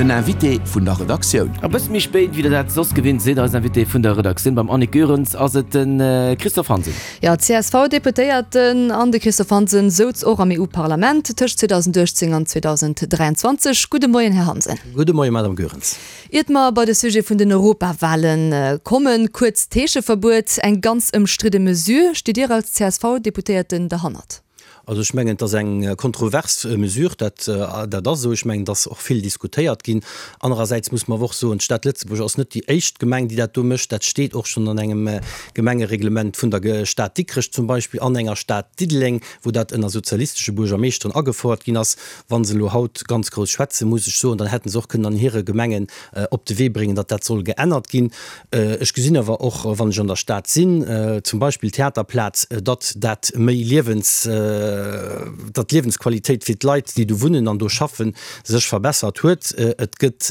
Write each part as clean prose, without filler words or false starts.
Den Invité vun der Redaktioun. E bësse méi spéit, wéi der dat soss gewinnt sidd, eisen Invité vun der Redaktioun beim Annick Goerens ass et de Christophe Hansen. Jo, d'CSV-Deputéierten an de Christophe Hansen souz och am EU-Parlament tëscht 2018 an 2023. Gudde Moien, Här Hansen. Gudde Moien, Madame Goerens. Iert mer bei de Sujet vun den Europawale kommen, kuerz, D'Heescheverbuet, eng ganz ëmstridde Mesure. Stitt Dir als CSV-Deputéierten derhannert? Also ech mengen, et ass eng kontrovers Mesure, dat, dat ass esou. Ech mengen, et ass och vill diskutéiert ginn. Anerersäits muss mer awer och soen, d'Stad Lëtzebuerg ass net déi éischt Gemeng, déi dat do mécht. Dat steet och schonn an engem Gemengereglement vun der Stad Dikrech zum Beispill an enger Stad Diddeleng, wou dat ënner sozialistesche Buergermeeschteren agefouert ginn ass. Wa se elo haut ganz grouss schwätzen, muss ech soen, dann hätte se och kënnen an hire Gemengen op de Wee bréngen, datt dat soll geännert ginn. Ech gesinn awer och, wann ech an der Stad sinn, zum Beispill d'Theaterplaz, datt dat méi Liewens, datt d'Liewensqualitéit fir d'Leit, déi do wunnen an do schaffen, sech verbessert huet. Et gëtt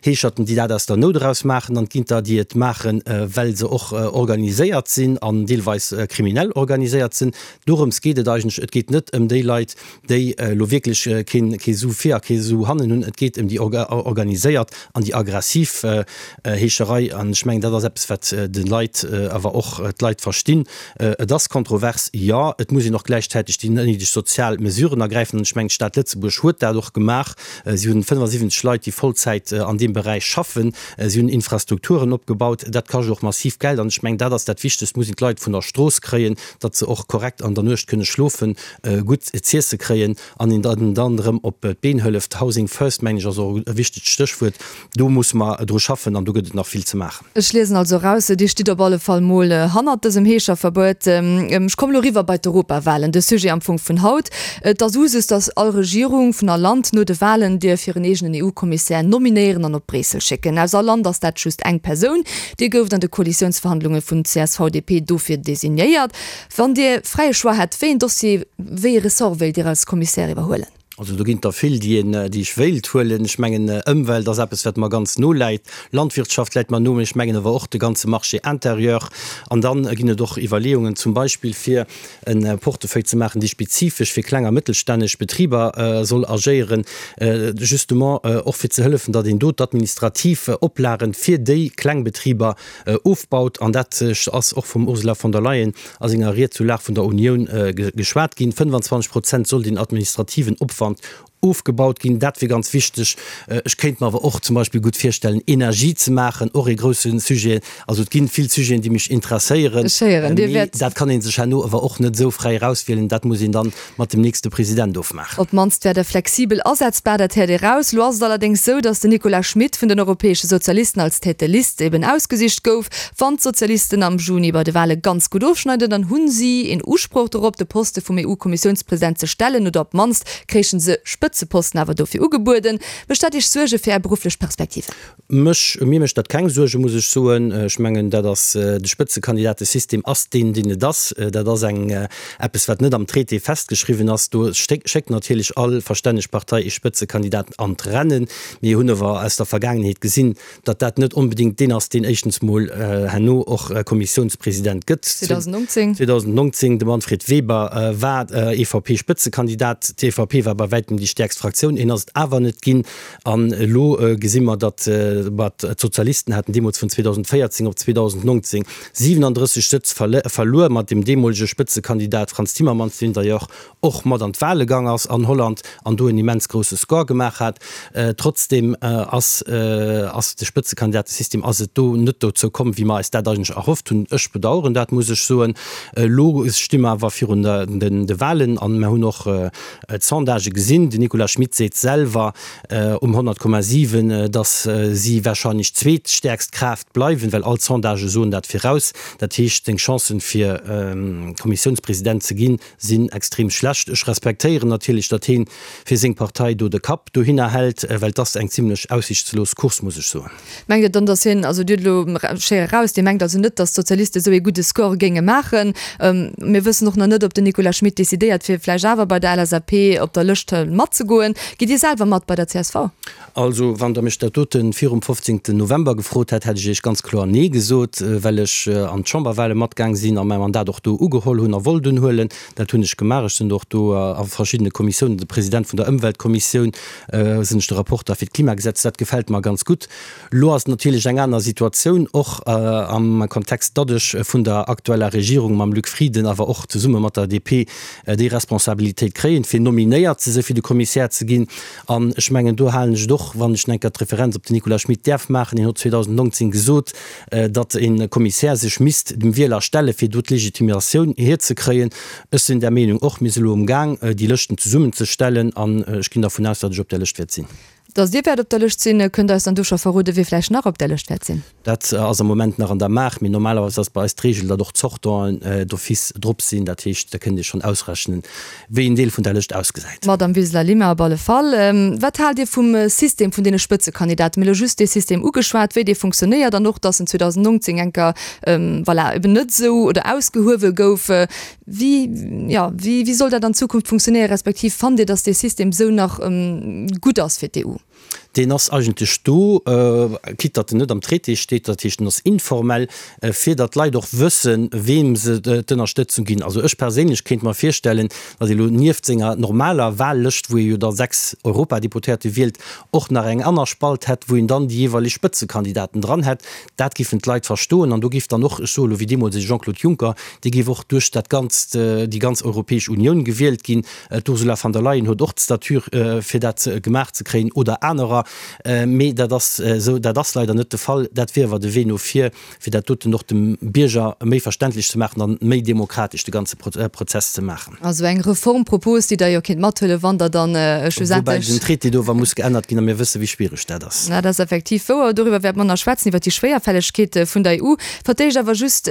Heescherten, déi dat aus der Nout eraus maachen, an et ginn der, déi et maachen, well se och organiséiert sinn an deelweis kriminell organiséiert sinn. Dorëms geet et eigentlech. Et geet net ëm déi Leit, déi elo wierklech kee Su vir a kee Su hannen hunn. Et geet ëm déi organiséiert an déi aggressiv Heescherei. An ech mengen, dat ass eppes, wat de Leit awer och d'Leit verstinn. Et ass kontrovers, jo. Et muss een och gläichzäiteg déi néideg sozial Mesuren ergräifen. An ech mengen, d'Stad Lëtzebuerg huet dat och gemaach. Si hunn 75 Leit, déi Vollzäit an deem Beräich schaffen. Si hunn Infrastrukturen opgebaut. Dat kascht och massiv Geld. An ech mengen, dat ass dat Wichtegst, muss een d'Leit vun der Strooss kréien, datt se och korrekt an der Nuecht kënne schlofen, gutt z'iesse kréien an een dann dann erëm op d'Been hëlleft. Housing first, mengen ech, ass och e wichtegt Stéchwuert. Do musse mer dru schaffen an do gëtt et nach vill ze maachen. Ech liesen also eraus, Dir stitt op alle Fall mol hannert dësem Heescherverbuet. Ech kommen elo eriwwer bei d'Europawahlen, de Sujet am Fong vun haut. Et ass Usus, datt all Regierung vun all Land no de Wahlen dierf hiren eegenen EU-Kommissär nominéieren an op Bréissel schécken. Aus all Land ass dat just eng Persoun. Dir gouft an de Koalitiounsverhandlunge vun CSV-DP dofir designéiert. Wann Dir fräie Choix hätt, wéi een Dossier, wéi ee Ressort wéilt Dir als Commissaire iwwerhuelen? Also do ginn et der vill, déi een, déi ech wéilt huelen. Ech mengen, Ëmwelt ass eppes, wat mer ganz no läit. Landwirtschaft läit mer no, mee ech mengen awer och de ganze Marché intérieur. An dann ginn et och Iwwerleeungen, zum Beispill fir e Portefeuille ze maachen, dee spezifesch fir kleng a mëttelstänneg Betriber soll agéieren, justement och fir ze hëllefen, datt een do d'administrativ Oplagen fir déi kleng Betriber ofbaut, an dat ass och vum Ursula von der Leyen a senger Ried zur Lag vun der Unioun geschwat ginn, 25 Prozent soll den administrativen Opwand ofgebaut ginn. Dat wier ganz wichteg. Ech kéint mer awer och zum Beispill gutt virstellen, Energie ze maachen, och ee grousse Sujet. Also et ginn vill Sujeten, déi mech interesséieren, mee dat kann ee sech herno awer och net esou fräi erauswielen. Dat muss een dann mat dem nächste President ofmaachen. Op d'mannst wär der flexibel asetzbar, dat héiert ee raus. Lo ass et allerdéngs sou, datt den Nicolas Schmit vun den Europäesche Sozialisten als Tête de liste eben ausgesicht gouf. Wann d'Sozialisten am Juni bei de Wale ganz gutt ofschneiden, dann hu si een Usproch dorop, de Poste vum EU-Kommissiounspresident ze stellen, oder op d'mannst kréichen se Spëtzeposten awer dofir ugebueden. Mécht dat Iech Suerge fir Är berufflech Perspektiven? Mech, mir mécht dat keng Suergen, muss ech soen. Ech mengen, dat ass, de Spëtzekandidatesystem ass deen, deen et ass. Dat ass eng, eppes, wat net am Traité festgeschriwwen ass. Do schéckt natierlech all verstänneg Partei ee Spëtzekandidat an d'Rennen. Mir hunn awer aus der Vergaangenheet gesinn, datt dat net onbedéngt deen ass, deen éischtens mol herno och Kommissiounspresident gëtt. 2019. 2019, de Manfred Weber war EVP-Spëtzekandidat. D'EVP war bei wäitem déi stäerkst Fraktioun. Hien ass et awer net ginn. An elo gesi mer, datt d'Sozialisten haten deemools vun 2014 op 2019 37 Sëtz verluer mat dem deemolege Spëtzekandidat Frans Timmermans, deen d'ailleurs och mat an d'Wahle gang ass an Holland an do en immens grousse Score gemaach hat. Trotzdeem ass ass de Spëtzekandidatesystem ass et do net dozou komm, wéi mer eis dat eigentlech erhofft hunn. Ech bedauern dat, muss ech soen. Elo sti mer awer virun de Wahlen an mer hunn och D'Sondagë gesinn. Den Nicolas Schmit seet selwer um 100,7, datt si warscheinlech zweetstäerkst Kraaft bleiwen, well all d'Sondagë soen dat viraus. Dat heescht, seng Chancen, fir Kommissiounspresident ze ginn, sinn extrem schlecht. Ech respektéieren natierlech, datt heen fir seng Partei do de Kapp dohinner hält, well et ass eng zimlech aussichtslos Course, muss ech soen. Mengt Dir dann, datt hien, also Dir hutt elo schéi eraus, Dir mengt also net, datt d'Sozialiste esou ee gudde Score géinge maachen? Mir wëssen och nach net, ob den Nicolas Schmit decidéiert, fir vläicht awer bei der LSAP op der Lëscht matzemaachen. matzegoen. Gitt Dir selwer mat bei der csv? Also, wann Der mech dat dote virum 15. November gefrot hätt, hätt ech Iech ganz kloer Nee gesot, well ech an d'Chamberwahle matgaang sinn a mäi Mandat och do ugeholl hunn a wollt unhuelen. Dat hunn ech gemaach. Ech sinn och do a verschiddene Kommissiounen, de President vun der Ëmweltkommissioun sinn ech, de Rapporter fir d'Klimagesetz. Dat gefält mer ganz gutt. Elo ass et natierlech eng aner Situatioun, och am Kontext, datt ech vun der aktueller Regierung mam Luc Frieden, awer och zesumme mat der DP, déi Responsabilitéit kréien, fir nominéiert ze sinn, fir de Kommissär ze ginn. An ech mengen, do halen ech et och, wann ech enker d'Referenz op den Nicolas Schmit däerf maachen, hien huet 2019 gesot, datt e Kommissär sech misst dem Wieler stellen, fir do d'Legitimatioun hierzekréien. Ech sinn där Meenung och. Mir si elo umgaang, déi Lëschten zesummenzestellen, an ech ginn dervun aus, datt ech op där Lëscht wäert sinn. Datt Dir wäert op der Lëscht sinn. Kënnt Der eis dann do scho verroden, wie vläicht nach op där Lëscht wäert sinn? Dat ass am Moment nach an der Maach, mee normalerweis ass bei eis d'Reegel, datt och d'Sortanten d'office drop sinn. Dat heescht, da kënnt Dir schonn ausrechnen, wéi en Deel vun der Lëscht ausgesäit. D'Madame Wiseler-Lima op alle Fall. Wat haalt Dir vum System vun deene Spëtzekandidaten? Mir hu lo just dee System ugeschwat, wéi dee funktionéiert an och, datt en 2019 enker, voilà, eben net esou oder ausgehuewe gouf. Wéi, jo, wéi, wéi soll dat an Zukunft funktionéieren, respektiv fannt Dir, datt dee System esou nach gutt ass fir d'EU? Deen ass eigentlech do, quitte datt en net am Traité steet, dat heescht en ass informell, fir datt d'Leit och wëssen, weem se d'Ënnerstëtzung ginn. Also ech perséinlech kéint mer virstellen, datt ee lo nieft senger normaler Wahllëscht, wou ee jo da 6 Europadeputéierte wielt, och nach eng aner Spalt hätt, wou een dann déi jeeweileg Spëtzekandidaten dran hätt. Dat giffen d'Leit verstoen an do giff dann och, ech soe lo wéi deemools de Jean-Claude Juncker, dee giff och duerch dat ganzt, déi ganz Europäesch Unioun gewielt ginn. D'Ursula von der Leyen huet och d'Stature fir dat gemaach ze kréien oder anerer. Mee dat ass esou, dat ass leider net de Fall. Dat wier awer de Wee no vir, fir dat doten och dem Bierger méi verständlech ze maachen an méi demokratesch de ganze Prozess ze maachen. Also eng Reformpropos, déi Der jo kéint mathuelen, wann Der dann schlussendlech. Woubäi den Traité do awer muss geännert ginn a mir wësse wéi schwiereg dat ass. Dat ass effektiv wouer. Doriwwer wäerte mer nach schwätzen, iwwer déi Schwéierfällegkeet vun der EU. Fir d'éischt awer just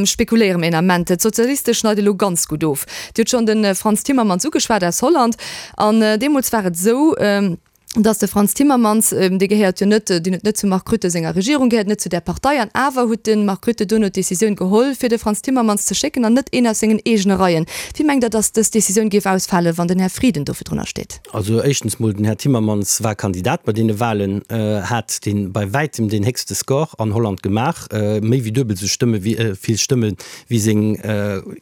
spekuléiere mir een Ament. D'Sozialiste schneide elo ganz gutt of. Dir hutt schonn de Frans Timmermans ugeschwat aus Holland. An deemools war et esou, dass de Frans Timmermans, dee gehéiert jo net, deen huet net zum Mark Rutte senger Regierung gehéiert, net zu där Partei, an awer huet de Mark Rutte duerno d'Decisioun geholl, fir de Frans Timmermans ze schécken an net een aus sengen eegene Reien. Wéi mengt Der, dass dës Decisioun géif ausfalen, wann den Här Frieden do virdrunner steet? Also éischtens mol, den Här Timmermans war Kandidat bei deene Wahlen, hat dee bei wäitem deen héchste Score an Holland gemaach, méi wéi duebel esou Stëmme wéi vill Stëmme wéi seng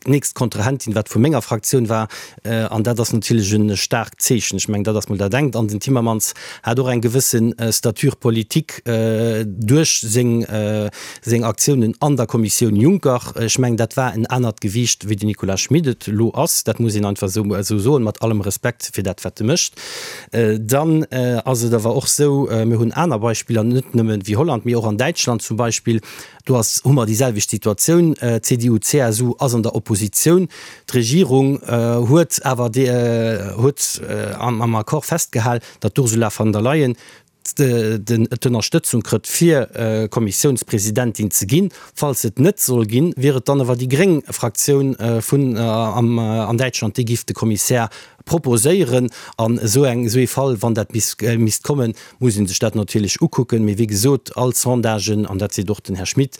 nächst Kontrahentin, wat vu menger Fraktioun war. An dat ass natierlech e staarkt Zeechen. Ech mengen, dat ass mol dat engt. An den Timmermans hat och eng gewësse Stature politique duerch seng, seng Aktiounen an der Kommissioun Juncker. Ech mengen, dat war en anert Gewiicht, wéi den Nicolas Schmit et elo ass. Dat muss een einfach esou, esou soen, mat allem Respekt fir dat, wat e mécht. Dann ass et awer och esou, mir hunn aner Beispiller, net nëmme wéi Holland, mee och an Däitschland zum Beispill, Do ass, hu mer déi selwecht Situatioun, CDU, CSU ass an der Oppositioun. D'Regierung huet awer huet am Accord festgehal, datt d'Ursula von der Leyen d'Ënnerstëtzung krëtt fir Kommissiounspresidentin ze ginn. Falls se et net soll ginn, wier et dann awer déi gréng Fraktioun vun an Däitschland, déi giff de Kommissär proposéieren. An esou eng, esou ee Fall, wann dat misst kommen, muss ee sech dat natierlech ukucken. Mee wéi gesot, all Sondagen, an dat seet och den Här Schmit,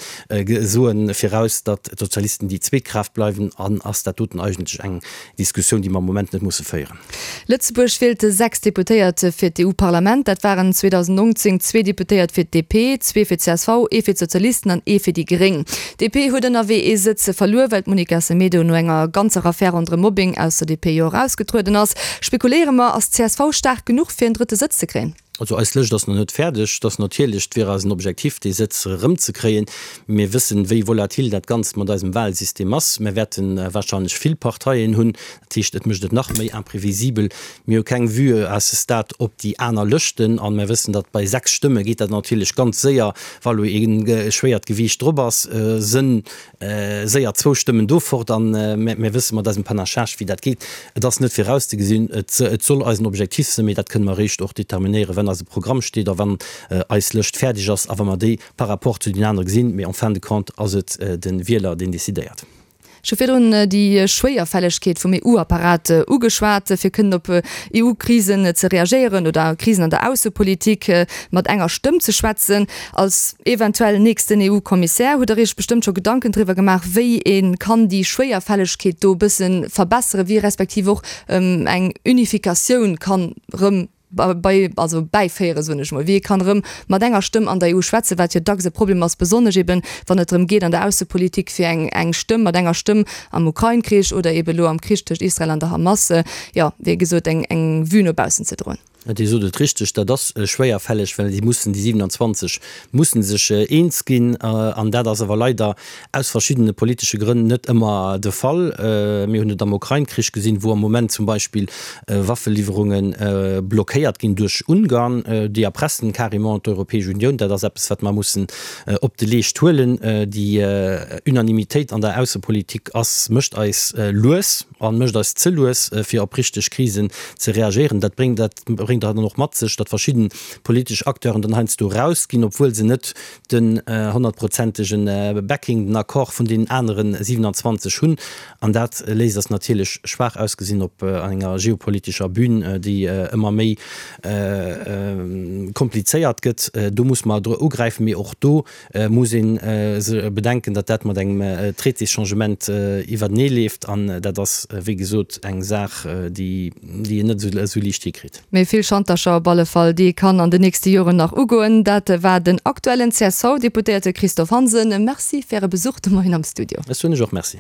soe viraus, datt d'Sozialisten déi zweet Kraaft bleiwen. An ass dat doten eigentlech eng Diskussioun, déi mer am Moment net musse féieren. Lëtzebuerg wielt 6 Deputéiert fir d'EU-Parlament. Dat waren 2019 zwee Deputéiert fir d'DP, zwee fir d'CSV, ee fir d'Sozialisten an ee fir déi Gréng. D'DP huet ënnerwee ee Sëtz verluer, well d'Monica Semedo no enger ganzer Affär ronderëm Mobbing aus der DP jo erausgetrueden ass. Spekuléiere mer, ass d'CSV staark genuch fir en drëtte Sëtz ze kréien? Also eis Lëscht ass nach net fäerdeg. Et ass natierlech, et wier eisen Objektiv dee Sëtz erëmzekréien. Mir wëssen, wéi volatil dat Ganzt mat eisem Wahlsystem ass. Mir wäerte wahrscheinlech vill Parteien hunn. Dat heescht, et mécht et nach méi imprévisibel. Mir hu keng Vue à ce stade op déi aner Lëschten an mir wëssen, datt bei 6 Stëmme geet dat natierlech ganz séier, wa lo ee schwéiert Gewiicht drop ass, sënn séier zwou Stëmmen do fort. An mir wësse mat eisem Panachage, wéi dat geet. Et ass net virauszegesinn. Et soll eisen Objektiv sinn, mee dat kënne mer eréischt och determinéieren, wann eise Programm steet a wann eis Lëscht fäerdeg ass a wa mer déi par rapport zu den anere gesinn. Mee en fin de compte ass et de Wieler, deen decidéiert. Ech hu virdrun déi Schwéierfällegkeet vum EU-Apparat ugeschwat, fir kënnen op EU-Krisen ze reagéieren oder Krisen an der Aussepolitik mat enger Stëmm ze schwätzen. Als eventuell nächsten EU-Kommissär hutt Der Iech bestëmmt scho Gedanken driwwer gemaach, wéi ee kann déi Schwéierfällegkeet do e bësse verbesseren, wéi respektiv och eng Unifikatioun kann erëm bei, also bäiféieren, soen ech mol, wéi ee kann erëm mat enger Stëmm an der EU schwätzen, wat jo dacks e Problem ass, besonnesch eben, wann et drëm geet an der Aussepolitik fir eng, eng Stëmm, mat enger Stëmm am Ukrain-Krich oder eben elo am Krich tëscht Israel an der Hamas, jo, wéi gesot, eng, eng Vue no baussen ze droen. Dir sot et richteg, dat ass schwéierfälleg, well déi mussen, déi 27 mussen sech eens ginn an dat ass awer leider aus verschiddene politesche Grënn net ëmmer de Fall. Mir hunn et am Ukrain-Krich gesinn, wou am Moment zum Beispill Waffeliwwerunge blockéiert ginn duerch Ungarn. Déi erpressen carrément d'Europäesch Unioun. Dat ass eppes, wat mer mussen op de Leescht huelen. Déi Unanimitéit an der Aussepolitik ass, mécht eis lues a mécht eis ze lues, fir op richteg Krisen ze reagéieren. Dat bréngt, dat bréngt dann och mat sech, datt verschidde politesch Acteuren dann heiansdo erausginn, obwuel se net den honnertprozentege Backing, den Accord vun deenen anere 27 hunn. An dat léisst eis natierlech schwaach ausgesinn op enger geopolitescher Bühn, déi ëmmer méi komplizéiert gëtt. Do muss mer ugräifen, mee och do muss ee bedenken, datt dat mat engem Traitésschangement iwwertenee leeft. An dat ass, wéi gesot, eng Saach, déi een net esou liicht hikritt. Mee vill Schantercher op alle Fall, déi ee kann an den nächste Joren nach ugoen. Dat war den aktuellen CSV-Deputéierte Christophe Hansen. Merci fir Äre Besuch de Moien am Studio. Ech soen lech och Merci.